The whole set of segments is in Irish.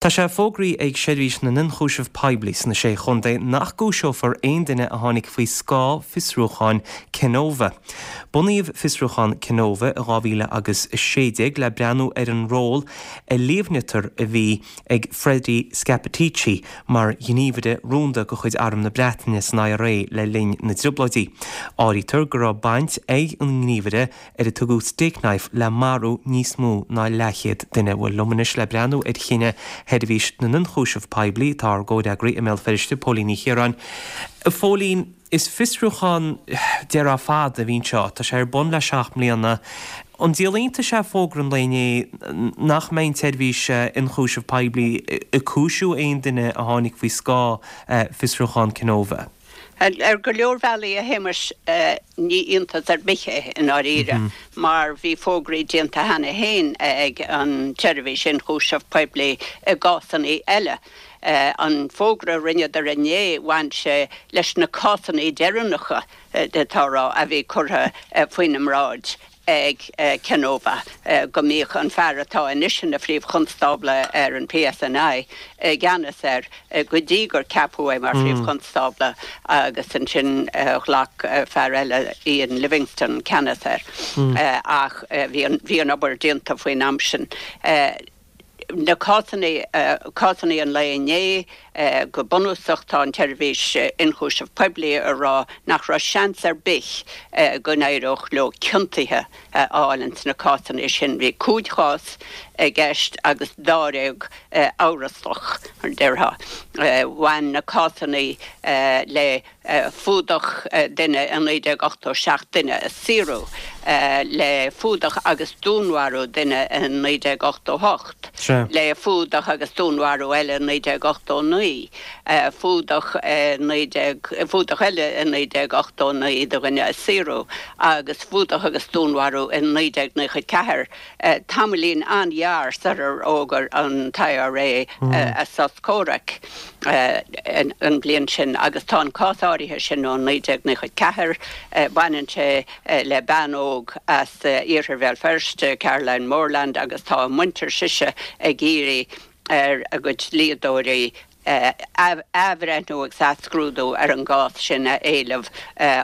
Tá sé fógraithe ag Seirbhís na nIonchúiseamh Poiblí sna Sé Chontae nach gcúiseofar aon duine a tháinig faoi scáth fiosrúcháin Kenova. Bunaíodh fiosrúchán Kenova i 2000 agus 16 le breathnú ar an ról a líomhnaítear a bhí ag Freddie Scappaticci mar ghníomhaire rúnda de chuid Arm na Breataine san IRA le linn na dTrioblóidí. Áirítear go raibh baint ag an ngníomhaire ar a tugadh Stakeknife le marú níos mó ná leathchéad duine. Bhuel, liom anois le breathnú ar chinneadh Sheirbhís na nIonchúiseamh Poiblí tá ár gcomhfhreagraí i mBéal Feirste, Póilín Ní Chiaráin. A Phóilín, is fiosrúchán, déarfá, fada a bhí anseo. Tá sé ar bun le 7 mbliana. An díol iontais é fógra an lae inné nach mbeidh an tSeirbhís Ionchúiseamh Poiblí ag cúisiú aon duine a tháinig faoi scáth fiosrúchán Kenova? Ar go leor bealaí, a Shéamais, ní iontas ar bith é i ndáiríre, mar bhí fógraí déanta cheana féin ag an tSeirbhís Ionchúiseamh Poiblí i gcásanna eile. An fógra a rinneadar inné, bhain sé leis na cásanna deireanacha, tá a rá, a bhí curtha faoina mbráid. ag Kenova go mbíodh an fear atá anois ina Phríomh-Chonstábla ar an PSNI i gceannas air go dtí gur ceapadh é mar Phríomh-Chonstábla agus ansin ghlac fear eile, Iain Livingstone, ceannas air. Ach bhí an obair déanta faoin am sin. Na cásanna, cásanna an lae inné, go bunúsach tá an tSeirbhís Ionchúiseamh Poiblí ag rá nach raibh seans ar bith go n-éireodh leo ciontuithe a fháil ins na cásanna sin. Bhí 5 chás i gceist agus dáréag amhrasach, mar a déarfá. Bhain na cásanna le fuadach duine i 1987, duine a saoradh le fuadach agus dúnmharú duine i 1988, le fuadach agus dúnmharú eile i 1989, fuadach i fuadach eile i 1989 do dhuine a saoradh agus fuadach agus dúnmharú i 1994. Tamaillín an-ghearr sular fhógair an t-IRA a sos comhraic an bhliain sin agus tá an cás áirithe sin ó 1994, baineann sé le bean óg as iarthar Bhéal Feirste, Caroline Morland agus tá a muintir sise ag iarraidh ar a gcuid dlíodóirí athbhreithniú agus athscrúdú ar an gcás sin a éileamh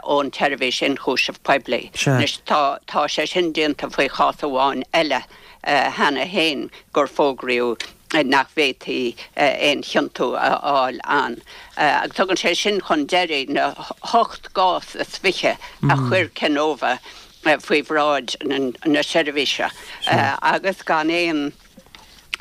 ón tSeirbhís Ionchúiseamh Poiblí. Anois tá tá sé sin déanta faoi chás amháin eile cheana féin gur fógraíodh nach bhféadfaí aon chiontú a fháil ann. Agus tugann sé sin chun deiridh na hocht gcás is fiche a chuir Kenova faoi bhráid na seirbhíse agus gan aon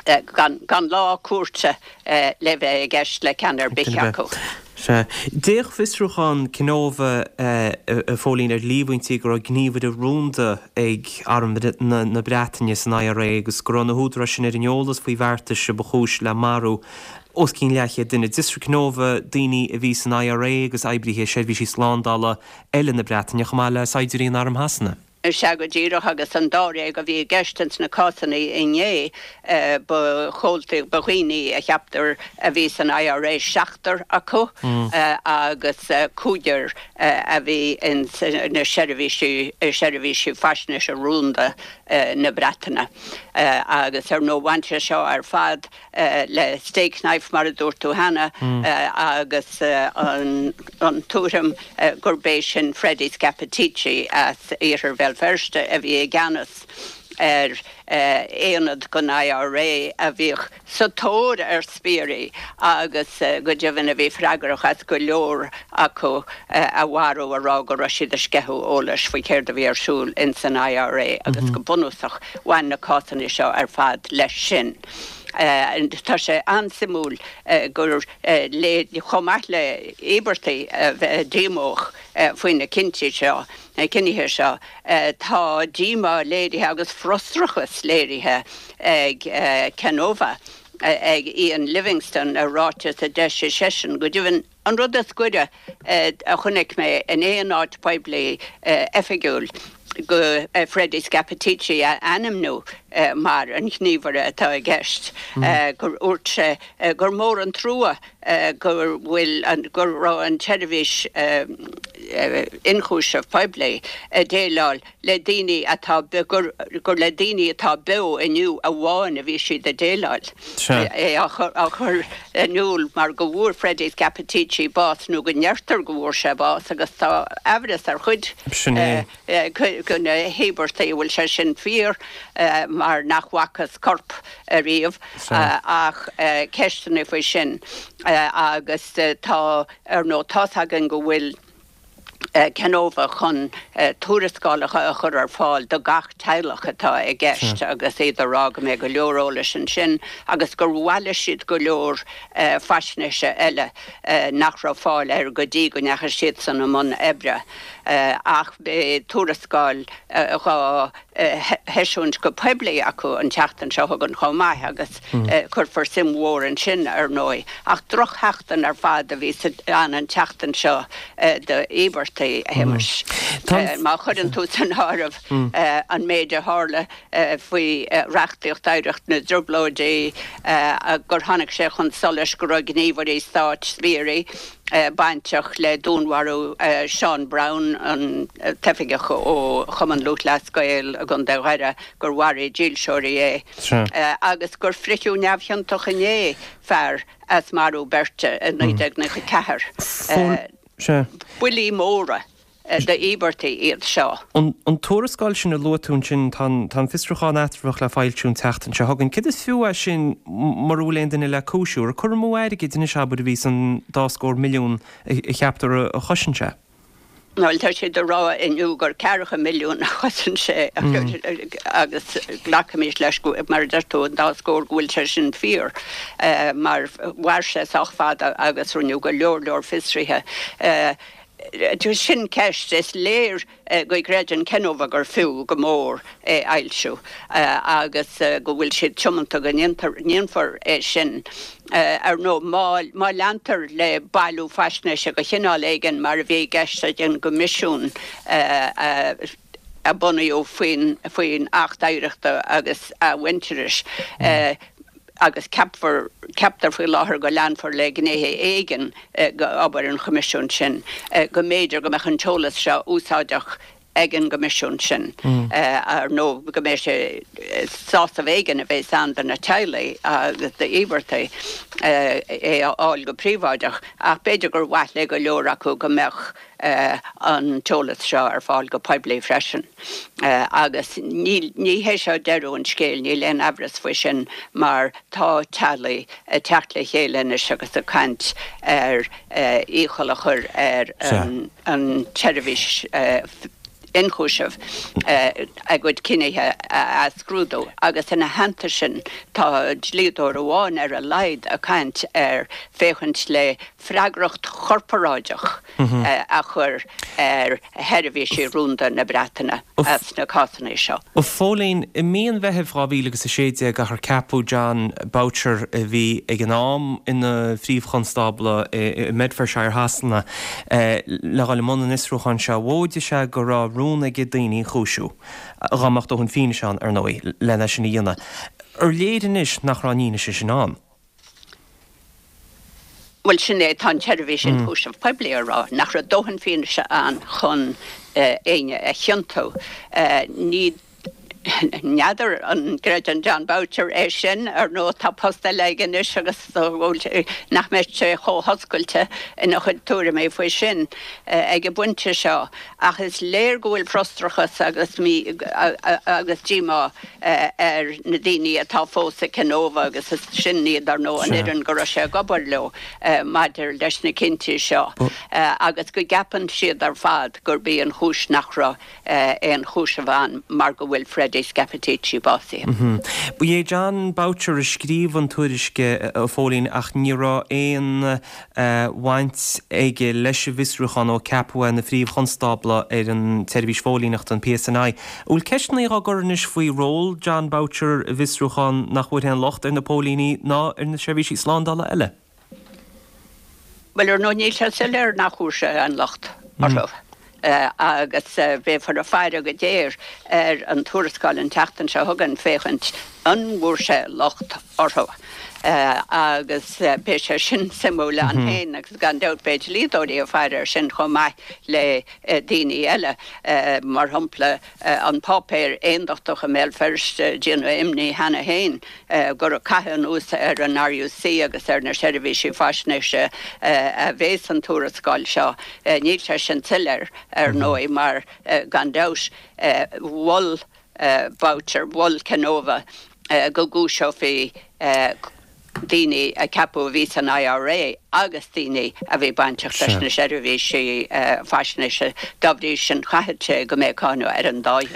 gan lá cúirte le bheith i gceist le ceann ar bith acu. Sea. D'fhéach fiosrúchán Kenova, a Phóilín, ar líomhaintí go raibh gníomhaire rúnda ag Arm na Breataine san IRA agus go raibh na húdaráis sin ar an eolas faoi bheartais a ba chúis le marú os cionn leathchéad duine. D'fhiosraigh Kenova daoine a bhí san IRA agus oibrithe seirbhísí slándála eile na Breataine chomh maith le saighdiúirí in Arm Shasana. Sea go díreach, agus an dáréag a bhí i gceist ins na cásanna inné, ba chomhaltaí, ba dhaoine a cheaptar a bhí san IRA seachtar acu agus cúigear a bhí ins na seirbhísí, seirbhísí faisnéise rúnda na Breataine. Agus ar ndóigh bhain sé seo ar fad le Stakeknife, mar a dúirt tú cheana, agus an tuairim gurb é sin Freddie Scappaticci as iarthar Bhéal Feirste a bhí i gceannas ar aonad den IRA a bhíodh sa tóir ar spiairí agus go deimhin a bhí freagrach as go leor acu a mharú a rá go raibh siad ag sceitheadh eolais faoi céard a bhí ar siúl ins an IRA agus go bunúsach bhain na cásanna seo ar fad leis sin. Tá sé an-suimiúil gur léir, chomh maith le íobartaigh a bheith díomách faoi na cinntí seo, na cinnithe seo, tá díomá léirithe agus frustrachas léirithe ag Kenova, ag Iain Livingstone, i ráiteas a d'eisigh seisean. Go deimhin, An rud is gaire a chonaic mé in aon áit poiblí oifigiúil go Freddie Scappaticci a ainmniú mar an ghníomhaire atá i gceist, gur dhúirt sé gur mór an trua go bhfuil an, go raibh an tseirbhís. Ionchúiseamh Poiblí ag déileáil le daoine atá, gur le daoine atá beo inniu amháin a bhí siad ag déileáil. É á chur in iúl mar go bhfuair Freddie Scappaticci bás, nó go ndeirtear go bhfuair sé bás, agus tá aimhreas ar chuid de na híobartaigh an bhfuil sé sin fíor mar nach bhfacthas corp ariamh ach ceisteanna faoi sin agus tá, ar ndóigh, tá's againn go bhfuil Kenova chun tuarascálacha a chur ar fáil do gach teaghlach atá i gceist agus iad ag rá go mbeidh go leor eolais ansin agus gur bhailigh siad go leor faisnéise eile nach raibh fáil air go dtí go ndeachaigh siadsan i mbun oibre. Ach beidh tuarascáil dhá heisiúint go poiblí acu an tseachtain seo chugainn chomh maith agus cuirfear suim mhór ansin, ar ndóigh. Ach drochsheachtain ar fad a bhí ann an tseachtain seo d'íobartaigh, a Shéamais. Má chuireann tú san áireamh an méid a tharla faoi reachtaíocht oidhreacht na dTrioblóidí, gur tháinig sé chun solais go raibh gníomhairí stáit, spiairí, bainteach le dúnmharú Seán Brown, an t-oifigeach ó Chumann Lúthchleas Gael i gContae Dhoire, gur mharaigh dílseoirí é, agus gur fritheadh neamhchiontach inné fear as marú beirte i 1994. Buillí móra. d'íobartaigh iad seo. An tuarascáil sin a luaigh tú ansin, tá an fiosrúchán eatramhach le foilsiú an tseachtain seo chugainn. Céard is fiú é sin mura bhfuil aon duine le cúisiú? Ar cur amú airgid anois, abair, a bhí san dá scór milliún a cheaptar a chosain sé? Bhuel, tá siad ag rá inniu gur ceathracha milliún a chosain sé agus glacaimis leis, mar a deir tú, an dá scór, go bhfuil sé sin fíor mar mhair sé sách fada agus rinneadh go leor leor fiosruithe. Sin ceist. Is léir go gcreideann Kenova gur fiú go mór é a fhoilsiú agus go bhfuil siad tiomanta go ndéanfar é sin. Ar ndóigh, má leantar le bailiú faisnéise de chineál éigin, mar a bhí i gceist ag an gCoimisiún a bunaíodh faoin Acht Oidhreachta agus Athmhuintearais, agus ceapfar, ceaptar faoi láthair go leanfar le gnéithe éigin d'obair an Choimisiúin sin, go mb'fhéidir go mbeadh an t-eolas seo úsáideach ag an gCoimisiún sin, ar ndóigh go mbeidh sé, sásamh éigin a bheas ann do na teaghlaigh agus d'íobartaigh é a fháil go príobháideach, ach b'fhéidir gur mhaith le go leor acu go mbeadh an t-eolas seo ar fáil go poiblí freisin. Agus ní hé seo deireadh an scéil, níl aon aimhreas faoi sin, mar tá teaghlaigh ag teacht le chéile anois agus ag caint ar iachall a chur ar an tseirbhís ionchúisimh a gcuid cinnithe a athscrúdú agus ina theannta sin tá dlíodóir amháin ar a laghad ag caint ar féachaint le freagracht chorparáideach a chur ar sheirbhísí rúnda na Breataine as na cásanna seo. A Phóilín, i mí an Mheithimh 2016 achar ceapadh Jon Boutcher, a bhí ag an am ina Phríomh-Chonstábla i mBedfordshire Shasana, le dhul i mbun an fhiosrúcháin seo. Mhóidigh sé go raibh rún aige daoine a chúisiú, dá mbeadh dóthain fianaise ann, ar ndóigh, lena sin a dhéanamh. Ar léir anois nach raibh an fhianaise sin ann? Bhuel, sin é, tá an tSeirbhís Ionchúiseamh Poiblí ag rá nach raibh dóthain fianaise ann chun éinne a chiontú. Ní, n'fheadar an gcreideann Jon Boutcher é sin. Ar ndóigh, tá post eile aige anois agus nach mbeidh sé chomh hoscailte ina chuid tuairimí faoi sin ag an bpointe seo. Ach is léir go bhfuil frustrachas agus mí agus díomá ar na daoine atá fós i Kenova agus is sin iad, ar ndóigh, an fhoireann go raibh sé ag obair leo maidir leis na cinntí seo agus go gceapann siad ar fad gurb í an chúis nach raibh aon chúiseamh ann mar go bhfuil Freddie Scappaticci básaithe. Ba é Jon Boutcher a scríobh an tuairisc, a Phóilín, ach ní raibh aon bhaint aige leis an bhfiosrúchán ó ceapadh é ina Phríomh-Chonstábla ar an tSeirbhís Phóilíneachta, an PSNI. An bhfuil ceisteanna á gcur anois faoi ról Jon Boutcher i bhfiosrúchán nach bhfuair aon locht ar na póilíní ná ar na seirbhísí slándála eile? Bhuel, ar ndóigh, níl sé soiléir nach bhfuair sé aon locht orthu. agus beifear ag faire go géar ar an tuarascáil an tseachtain seo chugainn féachaint an bhfuair sé locht orthu. Agus beidh sé sin suimiúil ann féin agus gan dabht beidh dlíodóirí ag faire air sin chomh maith le daoine eile. Mar shampla, an páipéar aondachtach i mBéal Feirste ag déanamh imní cheana féin gur ag caitheamh anuas ar an RUC agus ar na seirbhísí faisnéise a bhéas an tuarascáil seo. Níl sé sin soiléir, ar ndóigh, mar gan dabht mhol Boucher, mhol Kenova go gcúiseofaí daoine a ceapadh a bhí san IRA agus daoine a bhí bainteach leis na seirbhísí faisnéise. Dá bhrí sin, chaithfeadh sé go mbeadh cáineadh ar an dá dhream.